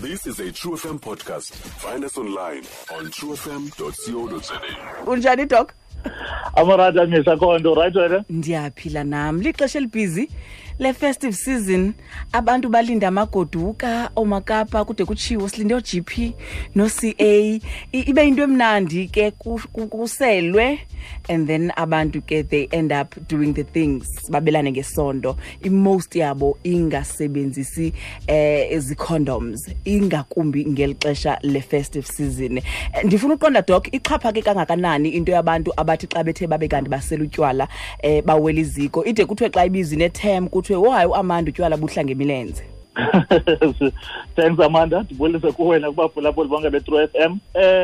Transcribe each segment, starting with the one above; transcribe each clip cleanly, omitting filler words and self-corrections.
This is a True FM podcast. Find us online on truefm.co.za. Unjani, Doc? Amorata misa khonto, right wena? Ndiyaphila nam. Lixesha elibhizi le-festive season, abantu balinda amagoduka oomakapa, kude kutshiwo silinde oo-GP no-CA. Ibe yinto emnandi ke, kuselwe, and then abantu ke they end up doing the things, babelane ngesondo, i-most yabo ingasebenzisi ezi-condoms, ingakumbi ngeli xesha le-festive season. Ndifuna uqonda, Doc, ixhaphake kangakanani into yabantu abathi xa bethe babe kanti basela utywala bawela iziko, ide kuthiwe xa ibizwa inetem kuthiwe, "Oh hayi, uAmanda utywala buhla ngemilenze"? Thanks, Amanda. Ndibulise kuwe nakubaphulaphuli bonke be-True FM.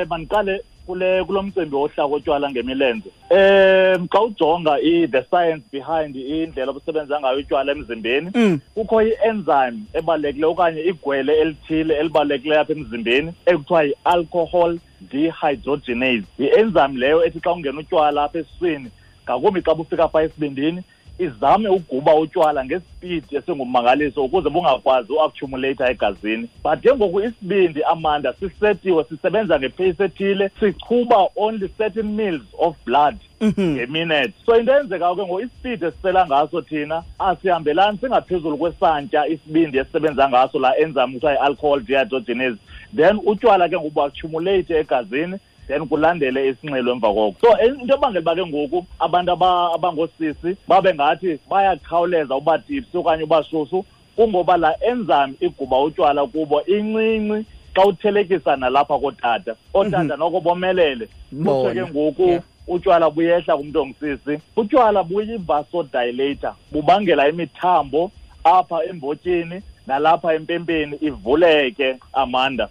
Mandiqale kule kulo mcimbi wohla kotywala ngemilenze. Xa ujonga the science behind indlela obusebenza ngayo utywala emzimbeni, kukho i-enzyme ebalulekileyo okanye igwele elithile elibalulekileyo apha emzimbeni ekuthiwa yi-alcohol dehydrogenase. Yi-enzyme leyo ethi xa ungena utywala apha esiswini, ngakumbi xa bufika phaa esibindini, izame uguba utywala ngesipidi esingummangaliso ukuze bungakwazi uaccumulate egazini. But ke ngoku isibindi, Amanda, sisetiwe sisebenza ngepace ethile, sichuba only certain mils of blood ngeminute. So into eyenzekayo ke ngoku, isipidi esisela ngaso thina asihambelani, singaphezulu kwesantya isibindi esisebenza ngaso laa enzyme kuthiwa yi-alcohol dehydrogenase. Then utywala ke ngoku buaccumulate egazini, then kulandele isinxilo emva koko. So into ebangela uba ke ngoku abantu abangoosisi babe ngathi bayakhawuleza uba tipsy okanye uba shushu, kungoba laa enzyme iguba utywala kubo incinci xa uthelekisa nalapha kootata. Ootata noko bomelele. Kuthiwe ke ngoku utywala buyehla kumntu ongusisi. Utywala buyi-vasodilator, bubangela imithambo apha embotyeni nalapha empempeni ivuleke, Amanda.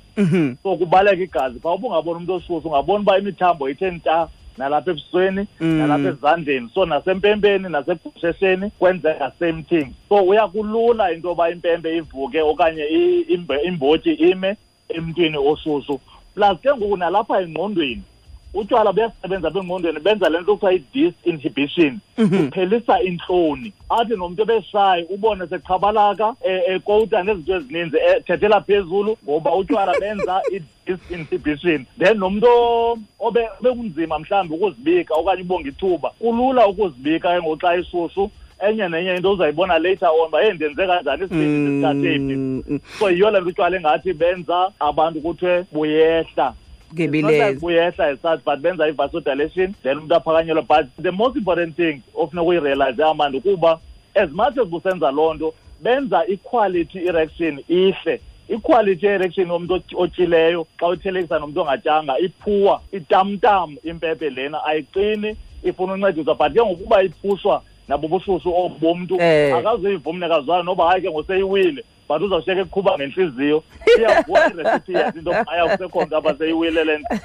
So kubaleka igazi phaa. Ubungabona umntu oshushu, ungabona uba imithambo ithe nta nalapha ebusweni, nalapha ezandleni, so nasempempeni nasegushesheni kwenzeka same thing. So uyakulula into yoba impempe ivuke okanye imbotyi ime emntwini oshushu. Plus ke ngoku nalapha engqondweni, utywala buyasebenza apha engqondweni, benza le nto kuthiwa i-disinhibition, kuphelisa intloni. Athi nomntu ebeshayi ubone seqhabalaka, ekowuta nezinto ezininzi, ethethela phezulu, ngoba utywala benza i-disinhibition. Then nomntu obekunzima mhlawumbi ukuzibika okanye ubonga ithuba, kulula ukuzibika ke ngoku xa eshushu. Enye nenye into uzayibona later on uba, "Hey, ndenze kanjani? Isibindi ndisithathe phi?" So yiyo le nto utywala engathi benza abantu kuthiwe buyehla ngemilenze. Buyehla as such, but benza i-vasodilation, then umntu aphakanyelwe. But the most important thing ofuna ukuyirealize, Amanda, ukuba as much as busenza loo nto, benza i-quality erection ihle. I-quality erection yomntu otyileyo xa uthelekisa nomntu ongatyanga iphuwa, itamtam impepe lena ayiqini, ifuna uncediswa. But ke ngokuba iphushwa nabo bushushu obu bomntu, akazuyiva umnikazi wayo noba hayi ke ngoseyiwile, but uzawushiyeka eqhuba ngentliziyo, iyavuka irecipient into aya kusekho nto apha seyiwile le nto,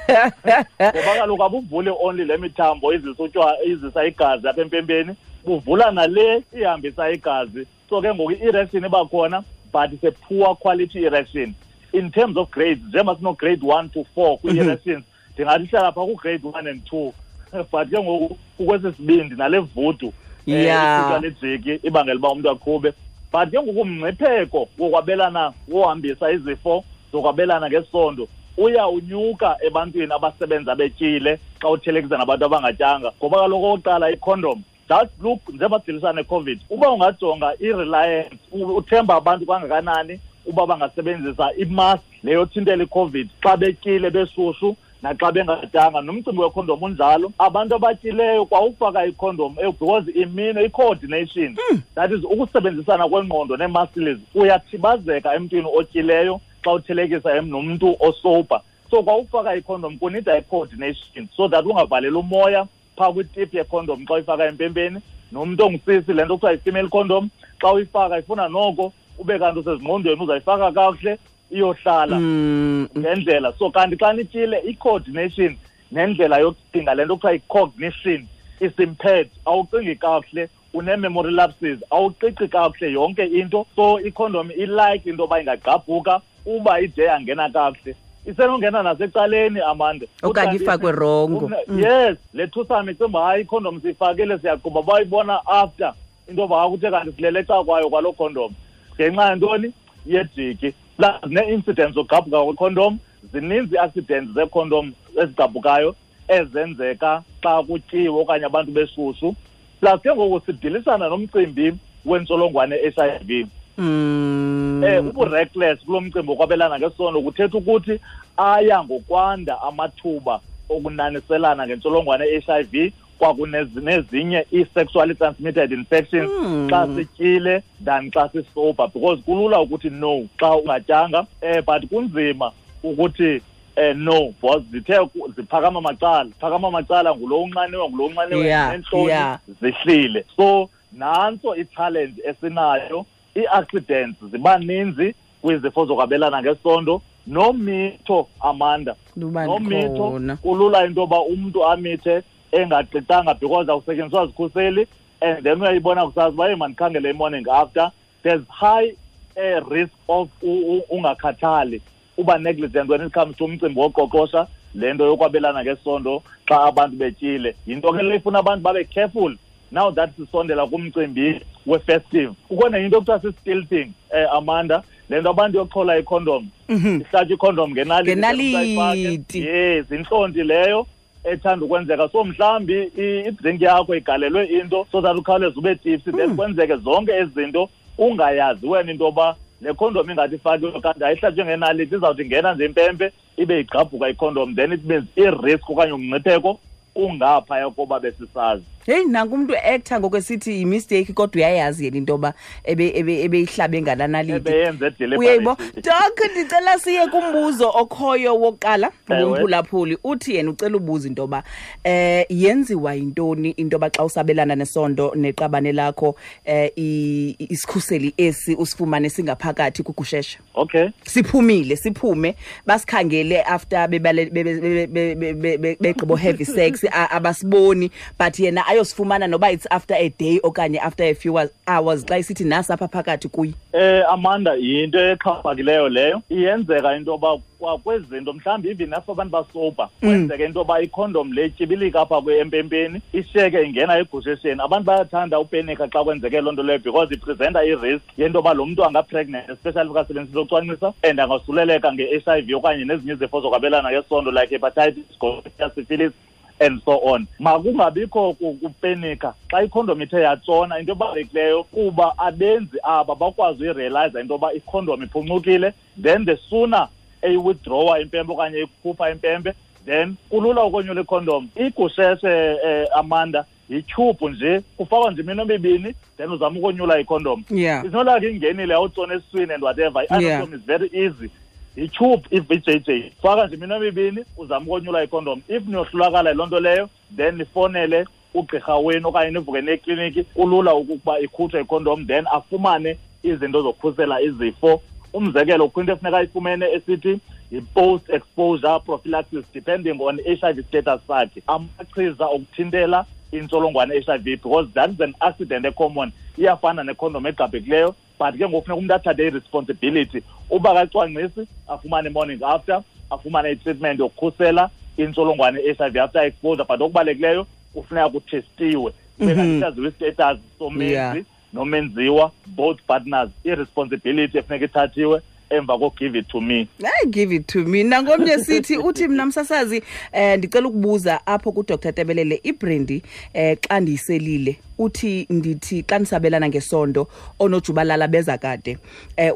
ngoba kaloku abuvuli only le mithambo izisa utywala, izisa igazi apha empempeni, buvula nale ihambisa igazi. So ke ngoku i-erection iba khona, but it's a poor quality erection in terms of grades. Njengoba sino-grade 1 to 4 kwii-erections, ndingathi ihlala phaa ku-grade 1 and 2, but ke ngoku kukwesi sibindi nale vudu lejiki ibangela uba umntu aqhube. But ke ngoku umngcipheko wokwabelana, wohambisa izifo zokwabelana ngesondo, uya unyuka ebantwini abasebenza betyile xa uthelekisa nabantu abangatyanga, ngoba kaloku okokuqala icondom, just look njengoba sidilisana neCOVID, uba ungajonga i-reliance, uthemba abantu kangakanani uba bangasebenzisa imask leyo thintela iCOVID xa betyile beshushu naxa bengatyanga. Nomcimbi wekhondom unjalo. Abantu abatyileyo kwawufaka ikhondom, because imino i-coordination, that is ukusebenzisana kwengqondo nee-muscles, uyathibazeka emntwini otyileyo xa uthelekisa nomntu osober. So kwawufaka ikhondom kunida i-coordination so that ungavaleli umoya phaa kwitip yekhondom xa uyifaka empempeni. Nomntu ongusisi, le nto kuthiwa yi-female condom, xa uyifaka ifuna noko ube kanti usezingqondweni, uzayifaka kakuhle iyohlala ngendlela. So kanti xa nityile, i-coordination nendlela yokucinga, le nto kuthiwa yi-cognition, is impaired. Awucingi kakuhle, une-memory lapses, awuqiqi kakuhle yonke into. So ikhondom ilike into yoba ingagqabhuka uba ide yangena kakuhle, isenongena nasecaleni, Amanda. Okanye ifakwe rongo. Yes, le thusane icinga uba hayi, ikhondom siyifakile, siyaqhuba, bayibona after into yoba kuthe kanti silele eca kwayo kwaloo condom ngenxa yantoni? Yejiki. Plus nee-incidents zogqabhuka kwekhondom, zininzi ii-accidents zeekhondom ezigqabhukayo ezenzeka xa kutyiwe okanye abantu beshushu. Plus ke ngoku sidilisana nomcimbi wentsholongwane HIV. Ubu-reckless kulo mcimbi wokwabelana ngesondo kuthetha ukuthi aya ngokwanda amathuba okunaniselana ngentsholongwane HIV kwakunezinye ii-sexually transmitted infections xa sityile than xa sisober, because kulula ukuthi no xa ungatyanga, but kunzima ukuthi no, because zithe ziphakama macala, phakama macala ngulo unxaniwe, ngulo unxaniwe, nentloni zihlile. So nantso i-challenge esinayo, ii-accidents ziba ninzi kwizifo zokwabelana ngesondo. Nomitho, Amanda, nomitho kulula into yoba umntu amithe engaqiqanga because awusetyenziswa zikhuseli, and then uyayibona kusasa uba hey mandikhangele i-morning after. There's high risk of ungakhathali, uba negligent when it comes to umcimbi woqoqosha le nto yokwabelana ngesondo xa abantu betyile. Yinto ke le ifuna abantu babe careful now that sisondela kumcimbi we-festive. Kukho nenye into ekuthiwa si-stealthing, Amanda, le nto abantu yokuchola ikhondom, ihlatywa ikhondom ngenaliti. Yes, intlonti leyo ethanda ukwenzeka. So mhlawumbi idrink yakho igalelwe into so that ukhawuleze ube tipsy, then kwenzeke zonke ezi zinto ungayazi wena into yoba le khondom ingathi ifakiwe kanti ayihlatywe ngenaliti, izawuthi ingena nje impempe ibe igqabhuka ikhondom, then it means i-risk okanye umngcipheko ungaphaya koba besisazi. Heyi, nanku umntu actor ngoku esithi yi-mistake, kodwa uyayazi yena into yoba ebeyihlabe ngalaa naliti. Ebeyenze deliberately. Uyayibo? Doc, ndicela siye kumbuzo okhoyo wokuqala ngumphulaphuli. Uthi yena ucela ubuza into yoba yenziwa yintoni into yoba xa usabelana nesondo neqabane lakho isikhuseli esi usifumane singaphakathi kugusheshe. Siphumile, siphume, basikhangele after begqibo heavy sex, abasiboni, but yena ayosifumana noba it's after a day okanye after a few hours xa isithi nasi apha phakathi kuye. Amanda, yinto exhaphakileyo leyo. Iyenzeka into yoba kwezinto mhlawumbi even apho abantu basoba, kwenzeka into yoba ikhondom le ityibilika apha empempeni, ishiyeke ingena egushesheni. Abantu bayathanda upenika xa kwenzeke loo nto leyo because ipresenta i-risk yento yoba lo mntu anga-pregnant, especially if akasebenzisi ucwangcisa, and angasuleleka nge-H I V okanye nezinye izifo zokwabelana ngesondo like hepatitis, gonorrhea, syphilis and so on. Makungabikho kupenika xa ikhondom ithe yatshona. Into ebalulekileyo kuba abenzi aba bakwazi uyirealize into yoba ikhondom iphuncukile, then the sooner eyiwithdrawa impempe okanye ikhupha impempe, then kulula ukonyula ikhondom. Igusheshe, Amanda, yityhubhu nje, kufakwa nje iminwe emibini, then uzama ukonyula ikhondom. It's not like ingenile awutshona esiswini and whatever. I-anatomy is very easy. Yityhubhu i-V J J, faka nje iminwe emibini uzama ukonyula ikhondom. If niyohlulakala yiloo nto leyo, then nifonele ugqirha wenu okanye nivuke nekliniki. Kulula ukuba ikhutshwe ikhondom, then afumane izinto zokukhusela izifo. Umzekelo, kukho into efuneka ayifumene esithi yi-post exposure prophylaxis, depending on HIV status sakhe, amachiza okuthintela intsholongwane HIV, because that is an accident ecommon, iyafana nekhondom egqabhekileyo. But ke ngoku funeka umntu athathe i-responsibility uba kacwangcisi, afumane morning after, afumane i-treatment yokukhusela intsholongwane i-H I V after exposure. But okubalulekileyo kufuneka kuthestiwe, kube kanti saziwe i-status somenzi nomenziwa, both partners, i-responsibility efuneka ithathiwe emva ko-give it to me. Hayi, give it to me. Nangomnye sithi, uthi mna msasazi, ndicela ukubuza apho kuDr Tebelele, ibrandy xa ndiyiselile, uthi ndithi xa ndisabelana ngesondo onojubalala beza kade,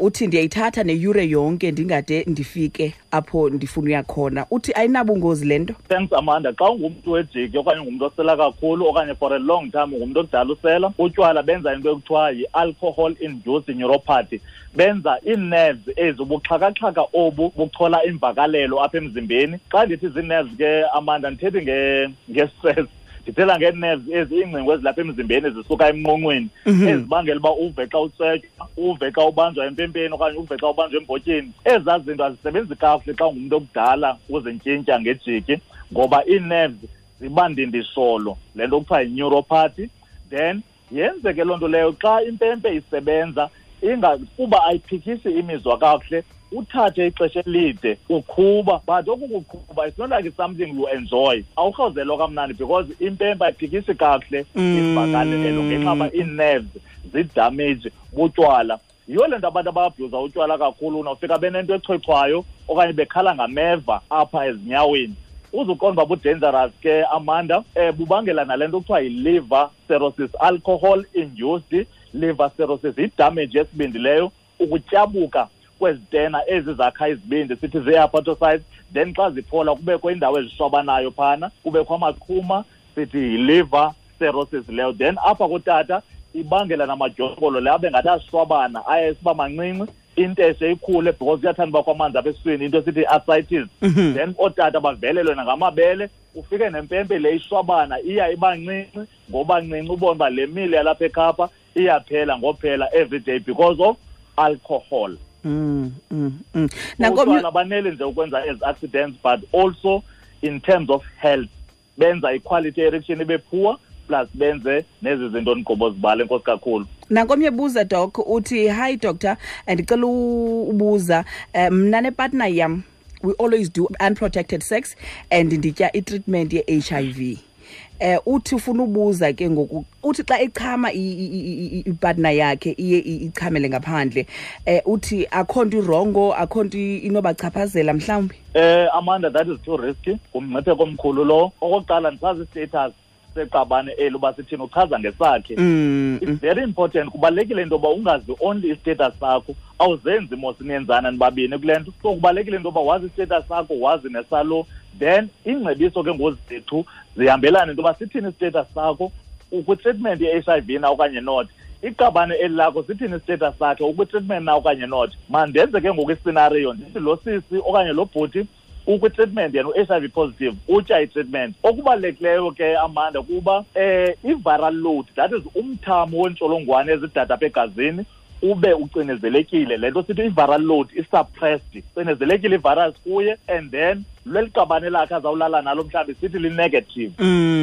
uthi ndiyayithatha neyure yonke ndingade ndifike apho ndifuna uya khona, uthi ayinabungozi le nto? Thanks, Amanda. Xa ungumntu wejiki okanye ungumntu osela kakhulu okanye for a long time ungumntu okudala usela utywala, benza into ekuthiwa yi-alcohol induced neuropathy. Benza ii-nerves ezi, ubuxhakaxhaka obu buchola imvakalelo apha emzimbeni. Xa ndithi zii-nerves ke, Amanda, ndithethi nge-stress, ndithela ngee-nerves ezi, iingcingo ezilapha emzimbeni zisuka emnqonqweni, ezibangela uba uve xa utsetywa, uve xa ubanjwa empempeni okanye uve xa ubanjwa embotyeni. Ezaa zinto azisebenzi kakuhle xa ungumntu okudala uzintyintya ngejiki, ngoba ii-nerves ziba ndindisholo, le nto kuthiwa yi-neuropathy. Then yenzeke loo nto leyo xa impempe isebenza inga kuba ayiphikisi imizwa kakuhle, uthathe ixesha elide uqhuba. But oku kuqhuba, it's not like it's something you enjoy, awurhawuzelwa kamnandi because impempe ayiphikisi kakuhle imvakalelo ngenxa yoba ii-nerves zidamage butywala. Yiyo le nto abantu ababhuza utywala kakhulu unofika benento echwechwayo okanye bekhala ngameva apha ezinyaweni. Uzuqonda uba bu-dangerous ke, Amanda, bubangela nale nto kuthiwa yi-liver cirrhosis, alcohol induced liver cirrhosis, yi-damage yesibindi leyo, ukutyabuka kwezitena ezi zakha izibindi, sithi zii-hepatocytes. Then xa ziphola kubekho indawo ezishwabanayo phana, kubekho amaqhuma, sithi yi-liver cirrhosis leyo. Then apha kutata ibangela namadyokolo le abe ngathi ashwabana, aye esiba mancinci, inteshe ikhule because kuyathanda uba kwamanzi apha esiswini, into esithi i-ascites. Then ootata bavelelwe nangamabele, ufike nempempe le ishwabana iya iba ncinci ngoba ncinci, ubone uba le mile yalapha eKapa iyaphela ngophela every day because of alcohol. Utywala banele nje ukwenza ezi accidents, but also in terms of health benza i-quality erection ibe poor, plus benze nezi zinto ndigqibo zibala. Enkosi kakhulu. Nankomnye buza, Doc, uthi, "Hi doctor, ndicela ubuza, mna nepartner yam, we always do unprotected sex and nditya i-treatment ye-HIV." Uthi ufuna ubuza ke ngoku, uthi xa echama ipartner yakhe iye ichamele ngaphandle. Uthi akho nto i-wrong, akho nto inobachaphazela mhlawumbi? Amanda, that is too risky, ngumngcipheko omkhulu lo. Okokuqala, ndisazi i-status seqabane eli uba sithini, uchaza ngesakhe. It's very important, kubalulekile into yoba ungazi only i-status sakho, awuzenzi mos niyenzana nibabini kule nto. So kubalulekile into yoba wazi i-status sakho, wazi nesalo. Then ingcebiso ke ngozethu zihambelane into yoba sithini i-status sakho, ukwi-treatment ye-HIV na okanye not. Iqabane eli lakho sithini i-status sakhe, ukwi-treatment na okanye not. Mandenze ke ngoku i-scenario, ndithi lo sisi okanye lo bhuti ukwi-treatment, yena u-HIV positive, utya i-treatment. Okubalulekileyo ke, Amanda, kuba i-viral load, that is umthamo wentsholongwane ezidada apha egazini, ube ucinezelekile. Le nto sithi i-viral load i-suppressed, cinezelekile i-virus kuye, and then leli qabane lakhe azawulala nalo mhlawumbi sithi li-negative.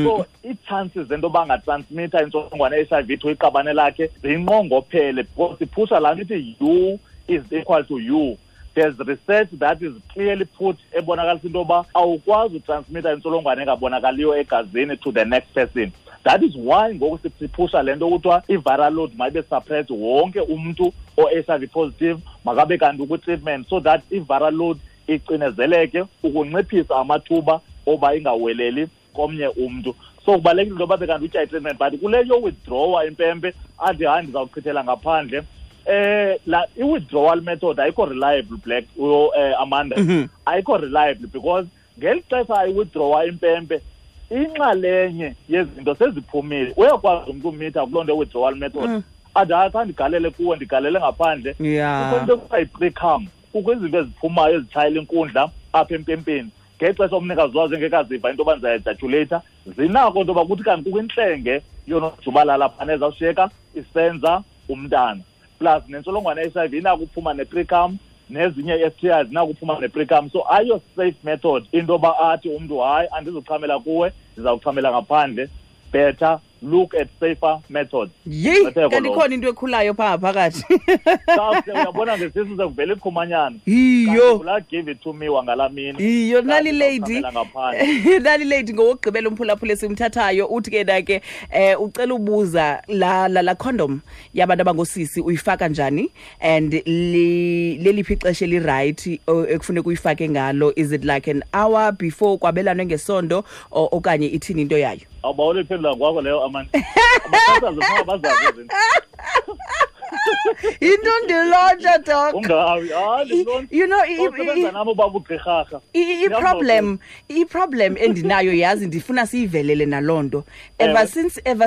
So ii-chances zento yoba angatransmitha intsholongwane ye-HIV to iqabane lakhe zinqongophele, because siphusha laa nto ithi U is equal to U. There's research that is clearly put ebonakalisa into yoba awukwazi utransmitha intsholongwane engabonakaliyo egazini to the next person. That is why ngoku siphusha le nto kuthiwa i-viral load mayibe suppressed, wonke umntu o-HIV positive makabe kanti ukwi-treatment, so that i-viral load icinezeleke ukunciphisa amathuba oba ingaweleli komnye umntu. So kubalulekile into yoba kanti utya i-treatment, but kule yo-withdrawa impempe athi hayi, ndizawuchithela ngaphandle, la i-withdrawal method ayikho reliable, black Amanda. Ayikho reliable because ngeli xesha ayi-withdrawa impempe, inxalenye yezinto seziphumile. Uyakwazi umntu umitha kuloo nto withdrawal method, athi hayi, kha ndigalele kuwe, ndigalele ngaphandle. Kukho into ekuthiwa yi-precum, kukho izinto eziphumayo ezitshayela inkundla apha empempeni ngexesha umnikazi wazo engekaziva into yoba ndizayaejaculata. Zinako into yoba kuthi kanti kukho intlenge yonojubalala phana ezawushiyeka isenza umntana. Plus nentsholongwane ye-HIV inako uphuma ne-precum, nezinye i-STIs zinako uphuma ne-precum. So ayo safe method into yoba athi umntu hayi, andizuchamela kuwe, ndizawuchamela ngaphandle. Better look at safer methods. Yeyi, kanti ikhona into ekhulayo phaa phakathi. Uyabona ngesisu sekuvela iqhumanyana. Iyo. La give it to me wangalaa mini. Iyo, nali lady. Nali lady ngowokugqibela umphulaphula esimthathayo, uthi ke na ke ucela ubuza la la, la condom yabantu abangosisi uyifaka njani, and leliphi ixesha eli-right ekufuneka uyifake ngalo? Is it like an hour before kwabelanwe ngesondo okanye ithini into yayo? Awubawela iphendula kwakho leyo, Amanda. Abasasazi funeka bazazi izinto. Into ndilontsha, Doc. Ungawi, hayi, ndilontsha. You know, Usebenza nami ubaba ugqirharha. I-problem endinayo, yazi, ndifuna siyivelele naloo nto. Ever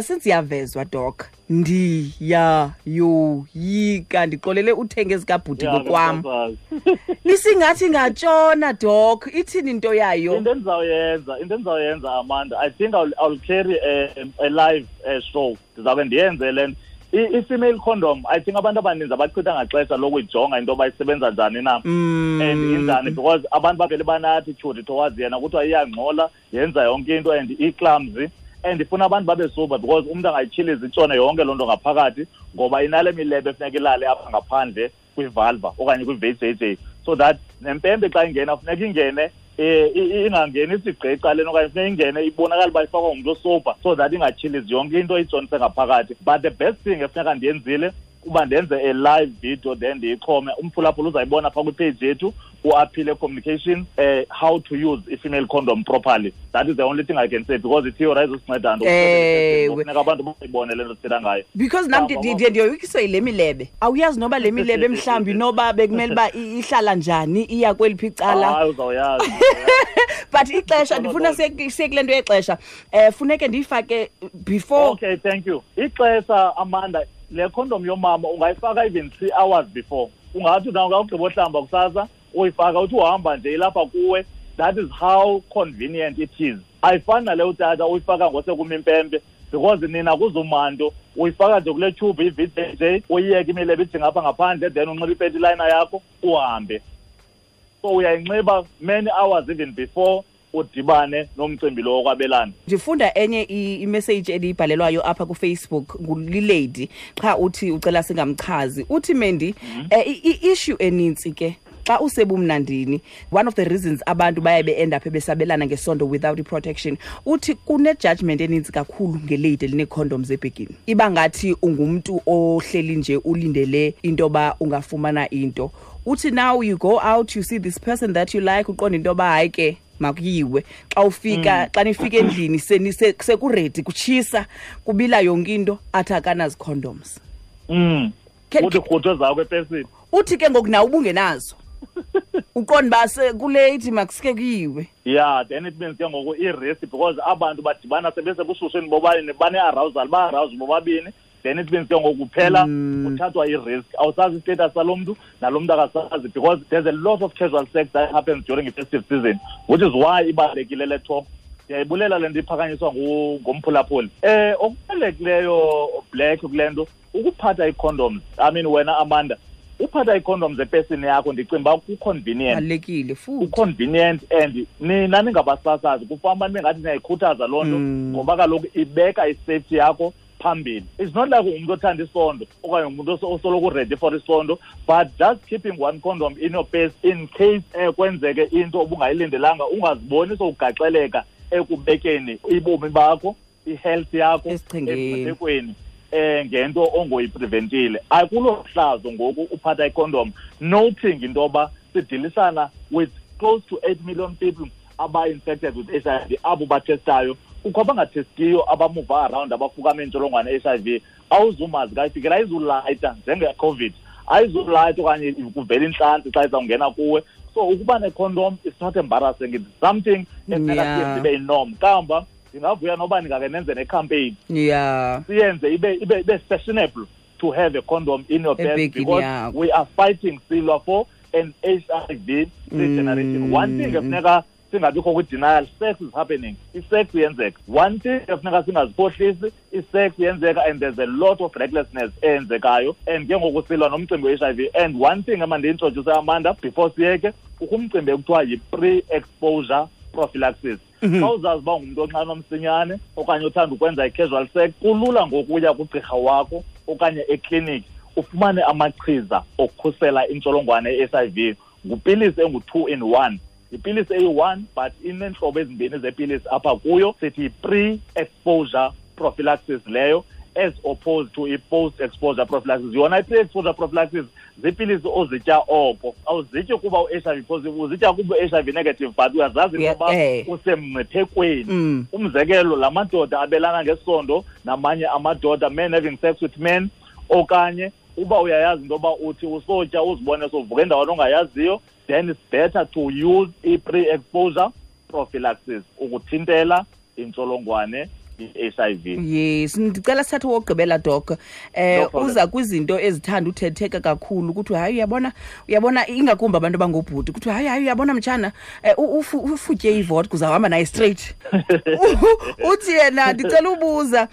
since yavezwa, Doc, ndiyayoyika, ndixolele uthenga ezikabhuti ngokwam. Msasazi. Nisingathi ngatshona, Doc, ithini into yayo? Into endizawuyenza, Amanda, I think I'll carry a live show. Ndizawube ndiyenze le nto. I-female condom, I think abantu abaninzi abachitha ngaxesha lokuyijonga into yoba isebenza njani na and injani, because abantu bavele bane-attitude towards yena, kuthiwa iyangxola, yenza yonke into and i-clumsy, and ifuna abantu babe sober because umntu angayityhiliza itshone yonke loo nto ngaphakathi, ngoba inale milebe efuneka ilale apha ngaphandle kwivulva okanye kwi-VJJ, so that nempempe xa ingena funeka ingene ingangeni isigqi ecaleni, okanye funeka ingene ibonakala uba ifakwa ngumntu osober, so that ingatyhilizi yonke into itshonise ngaphakathi. But the best thing efuneka ndiyenzile Uba ndenze a live video, then ndiyixhome, umphulaphula uzayibona phaa kwipage yethu uAphile Communication, how to use a female condom properly. That is the only thing I can say, because i-theory ayizosinceda nto. Kufuneka abantu bayibone le nto sithetha ngayo. Because nam ndiye ndiyoyikiswa yile milebe. Awuyazi noba le milebe mhlawumbi noba bekumele uba ihlala njani, iya kweliphi icala. Hayi, uzawuyazi. But ixesha, ndifuna siye kule nto yexesha. Funeke ndiyifake before. Okay, thank you. Ixesha, Amanda, le condom yomama ungayifaka even 3 hours before. Ungathi na ungawugqiba ohlamba kusasa, uyifaka uthi uhamba nje ilapha kuwe. That is how convenient it is. Ayifani nale utata uyifaka ngosekumimpempe, because nina kuzumanto uyifaka nje kule tube i-VJJ, uyiyeke imilebe ijinga apha ngaphandle, then unxibe ipanty liner yakho uhambe. So uyayinxiba many hours even before udibane nomcimbi lo wokwabelana. Ndifunda enye imessage endiyibhalelwayo apha kuFacebook ngulilady, qha uthi ucela singamchazi. Uthi Mendi, i-issue enintsi ke xa usebumnandini, one of the reasons abantu baye be-end up besabelana ngesondo without i-protection, uthi kune-judgment enintsi kakhulu ngelady elinee-condoms ebhegini. Iba ngathi ungumntu ohleli nje ulindele into yoba ungafumana into. Uthi now you go out, you see this person that you like, uqonda into yoba hayi ke makuyiwe. Xa ufika, xa nifika endlini sekuredi, kutshisa, kubila yonke into, athi akanazi condoms. Uthi rhuthe zakho epesini. Uthi ke ngoku nawe ubungenazo. Uqonda uba kulate makusike kuyiwe. Yeah, then it means ke ngoku i-risk, because abantu badibana sebesebushushini bobabini, bane-arousal, ba-arouse bobabini. Then it means ke ngoku kuphela kuthathwa i-risk. Awusazi i-status salo mntu, nalo mntu akasazi, because there's a lot of casual sex that happens during the festive season, which is why ibalulekile le talk. Ndiyayibulela le nto iphakanyiswa ngumphulaphuli. Okubalulekileyo Black kule nto, ukuphatha ii-condoms. I mean, wena Amanda, uphatha ii-condoms epesini yakho, ndicinga uba ku-convenient. Balulekile futhi. Ku-convenient, and nina ningabasasazi, kufana ningathi niyayikhuthaza loo nto, ngoba kaloku ibeka i-safety yakho phambili. It's not like ungumntu othanda isondo okanye ungumntu osoloko ready for isondo, but just keeping one condom in your purse in case kwenzeke into obungayilindelanga, ungaziboni sowugaxeleka ekubekeni ibomi bakho, i-health yakho Esichengeni. Ngento ongoyipreventile. Akulo hlazo ngoku uphatha icondom, noting into yoba sidilisana with close to 8 million people aba-infected with HIV, abo batestayo. Kukho abangatestiyo, abamuva around, abafukama intsholongwane ye-HIV. Awuzumazi kayifikela, ayizulayita njenge-COVID, ayizulayita okanye kuvela intlantsi xa izawungena kuwe. So ukuba necondom is not embarrassing, it's something efuneka siyenze ibe yinorm. Kamva ndingavuya noba ndingake nenze necampaign. Siyenze ibe fashionable to have a condom in your purse, because we are fighting silwa for an HIV free generation. One thing efuneka singabikho kwi-denial, sex is happening. I-sex iyenzeka. One thing efuneka singaziphohlisi, i-sex iyenzeka, and there's a lot of recklessness eyenzekayo. And ke ngoku silwa nomcimbi we-HIV. And one thing emandiyi-introduce Amanda before siyeke, kukho umcimbi ekuthiwa yi-pre-exposure prophylaxis. Xa uzazi uba ungumntu onxanwa msinyane okanye othanda ukwenza i-casual sex, kulula ngokuya kugqirha wakho okanye ekliniki ufumane amachiza okukhusela intsholongwane ye-HIV. Ngupilisi engu-2 in 1. Ipilisi eyi-1, but ineentlobo ezimbini zepilisi apha kuyo. Sithi pre-exposure prophylaxis leyo, as opposed to i-post-exposure prophylaxis. Yona i-pre-exposure prophylaxis ziipilisi ozitya oko. Awuzityi kuba u-HIV positive, uzitya kuba u-HIV negative, but uyazazi ukuba usemngciphekweni. Umzekelo, la madoda abelana ngesondo namanye amadoda, men having sex with men, okanye uba uyayazi into yoba uthi usotya uzibone sovuka endaweni ongayaziyo, then it's better to use i-pre-exposure prophylaxis ukuthintela intsholongwane i-HIV. Yes, ndicela sithathe wokugqibela Doc. Uza kwizinto ezithanda uthetheka kakhulu ukuthi hayi uyabona ingakumbi abantu abangobhuti ukuthi hayi uyabona mtshana, ufutye ivodka uzawuhamba naye straight. Uthi yena ndicela ubuza,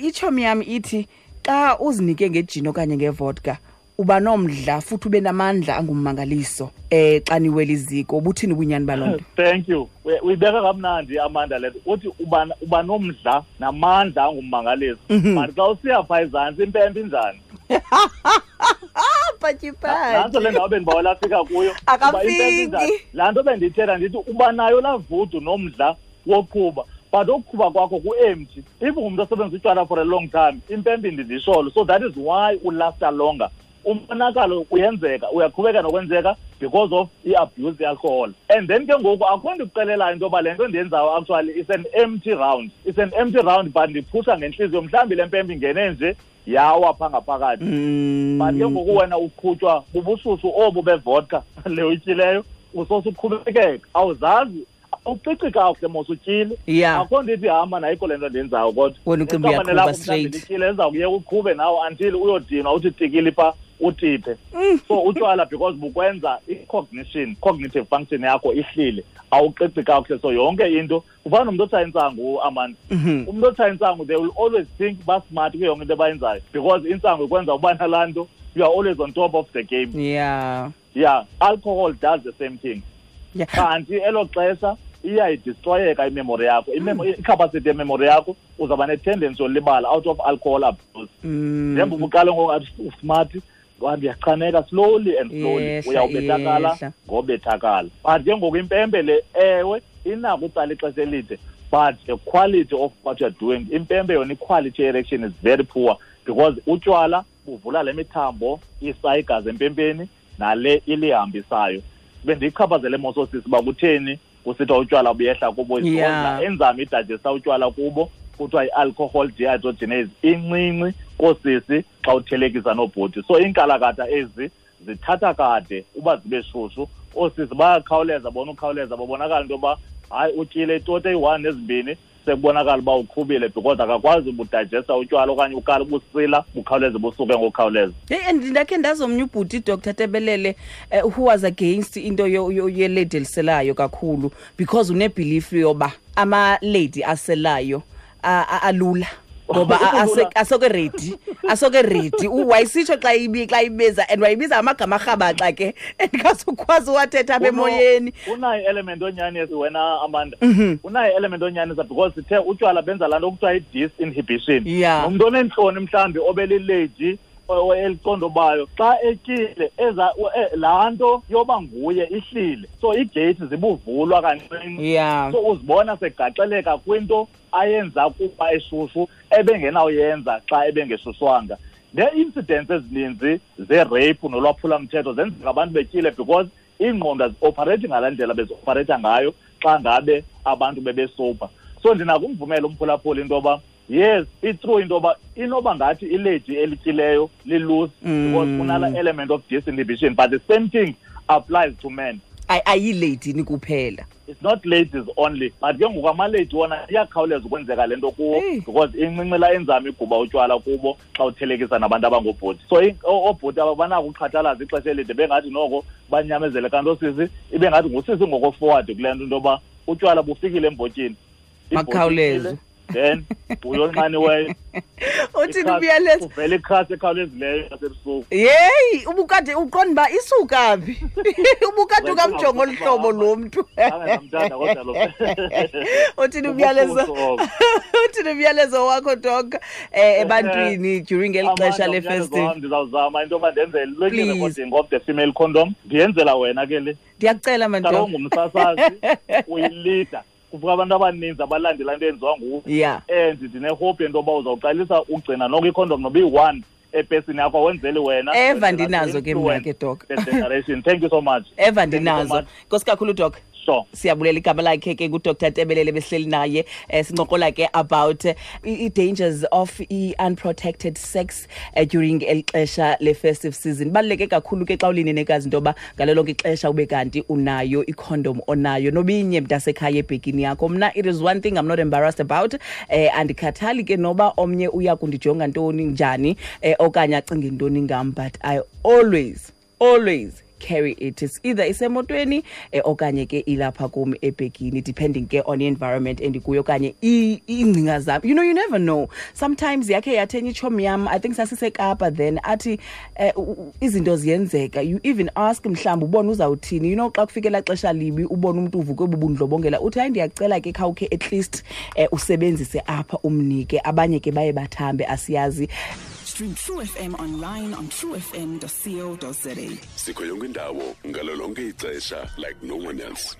ichomi yam ithi xa uzinike ngejini okanye ngevodka uba nomdla futhi ube namandla angummangaliso xa niwela iziko. Ubuthini ubunyani baloo nto? Thank you. Uyibeka kamnandi Amanda le nto. Uthi uba nomdla namandla angummangaliso. But xa usiya phaa ezantsi impempe injani? Nantso le ndawo bendibawela afika kuyo. Akafiki. Laa nto bendiyithetha ndithi uba nayo laa vudu nomdla woqhuba, But ukuqhuba kwakho ku-empty. If ungumntu osebenzisa utywala for a long time, impempe indindisholo. So that is why ulasta longer. Umonakalo uyenzeka, uyaqhubeka nokwenzeka because of i-abuse ye-alcohol. And then ke ngoku akho nto ikuxelelayo into yoba le nto ndiyenzayo actually is an empty round. It's an empty round, but ndiphusha ngentliziyo. Mhlawumbi le mpempe ingene nje yawa phaa ngaphakathi. But ke ngoku wena uqhutywa bubushushu obu bevodka le uyityileyo, usose uqhubekeka. Awuzazi, awuqiqi kakuhle mos utyile. Akho nto ithi hamba nayikho le nto ndiyenzayo kodwa. Wena ucinga Iqabane uyaqhuba lakho mhlawumbi straight. lityile, liza kuyeka uqhube nawe until uyodinwa uthi tikili phaa utiphe. So utywala because bukwenza i-cognition, cognitive function yakho ihlile, awuqiqi kakuhle. So yonke into ufana nomntu otshaya intsangu, Amanda. Umntu otshaya intsangu, they will always think ba-smart kuyo yonke into abayenzayo because intsangu ikwenza uba nalaa nto, you are always on top of the game. Yeah, alcohol does the same thing. Kanti elo xesha iyayidestroyeka imemory yakho, i-capacity yememory yakho, uzawuba ne-tendency yolibala out of alcohol abuse. Njengoba uqale ngoku athi usmart, ndiyachaneka slowly and slowly, Yehla, uyawubethakala yehla. ngobethakala. But ke ngoku impempe le, ewe, inako utsala ixesha elide, but the quality of what you are doing, impempe yona i-quality erection is very poor because utywala buvula le mithambo isa igazi empempeni nale ilihambisayo. Bendiyichaphazele mososisi uba kutheni kusithiwa utywala buyehla kubo, enzame idigesta utywala kubo, kuthiwa i-alcohol dehydrogenase incinci koosisi xa uthelekisa noobhuti. So iinkalakatha ezi zithatha kade uba zibe shushu, oosisi bayakhawuleza bona ukhawuleza, babonakala into yoba hayi utyile itoti eyi-1 nezimbini, sekubonakala uba uqhubile because akakwazi ubudigesta utywala okanye ukala ubusila bukhawuleze busuke ngokukhawuleza. Hey, and ndakhe ndazomnye ubhuti, Doctor Tebelele, who was against into yelady eliselayo kakhulu because unebelief yoba ama-lady aselayo alula. Ngoba asoke ready, asoke ready. Wayisitsho xa ibiza, and wayibiza amagama arhabaxa ke, andikazukwazi uwathetha apha emoyeni. Unayo element onyanisa wena, Amanda. Unayo element onyanisa because sithe utywala benza laa nto kuthiwa i-disinhibition. Nomntu oneentloni mhlawumbi obelilady eliqondobayo, xa etyile laa nto yoba nguye ihlile. So iigeyithi zibuvulwa kancinci. So uzibona segaxeleka kwinto ayenza kuba eshushu ebengenawuyenza xa ebengeshushwanga. Nee-incidents ezininzi ze-rape nolwaphulamthetho zenzeka abantu betyile because iingqondo azioperate ngalaa ndlela bezioperate ngayo xa ngabe abantu bebesober. So ndinakumvumela umphulaphuli into yoba yes, it's true into yoba inoba ngathi ilady elityileyo liloose because kunala element of disinhibition, but the same thing applies to men. Ayilady ni kuphela. It's not ladies only, but ke ngoku amalady wona iyakhawuleza ukwenzeka le nto kuwo because incinci laa enzame iguba utywala kubo xa uthelekisa nabantu abangoobhuti. So oobhuti aba banako uqhathalaza ixesha elide bengathi noko banyamezele, kanti oosisi ibe ngathi ngusisi ngoko forward kule nto, into yoba utywala bufikile embotyini. Ibhotyi Makhawuleze. ifikile, then uyonqaniweyo. Uthini Ikhasi, umyalezo? Uvela ikhasi ekhawulezileyo yasebusuku. Yeyi, ubukade uqonda uba isuka phi? Ubukade Wena ukamjonga olu hlobo lo mntu. Zange ndamthanda kodwa lo. Uthini umyalezo? Ubufuso obo. Uthini umyalezo wakho, Doc, ebantwini during eli Amanda, xesha le umyalezo festive? wam ndizawuzama into yoba ndenze le Please. recording of the female condom. Ndiyenzela wena ke le. Ndiyakucela, man, Kaloku Doc. ungumsasazi, uyilida. Kuvuka abantu abaninzi abalandela into eyenziwa nguwe. And ndinehope yento yoba uzawuqalisa ugcina noko ikhondom noba iyi-1 epesini yakho, awenzeli wena. Eva Wenzela ndinazo ke mna ke, Doc. the generation. Thank you so much. Eva Thank you so ndinazo. much. Nkosi kakhulu, Doc. Sure. Siyabulela igama lakhe ke nguDr Tebelele, besihleli naye, sincokola ke about i-dangers of i-unprotected sex during eli xesha le-festive season. Ibaluleke kakhulu ke xa ulinenekazi into yoba ngalo lonke ixesha ube kanti unayo ikhondom onayo nobinye mntasekhaya ebhekini yakho. Mna it is one thing I'm not embarrassed about. Andikhathali ke noba omnye uya kundijonga ntoni njani, okanye acinge ntoni ngam, but I always carry it. It's either isemotweni, okanye ke ilapha kum ebhegini, depending ke on the environment endikuyo okanye iingcinga zam. You never know. Sometimes yakhe yathenya itshomi yam, I think sasiseKapa then, athi, izinto ziyenzeka. You even ask mhlawumbi ubone uzawuthini. Xa kufike elaa xesha libi ubone umntu uvuke bubundlobongela, uthi hayi ndiyacela ke khawukhe at least usebenzise apha umnike. Abanye ke baye bathambe, asiyazi. Stream True FM online on truefm.co.za. Sikho yonke indawo ngalo lonke ixesha like no one else.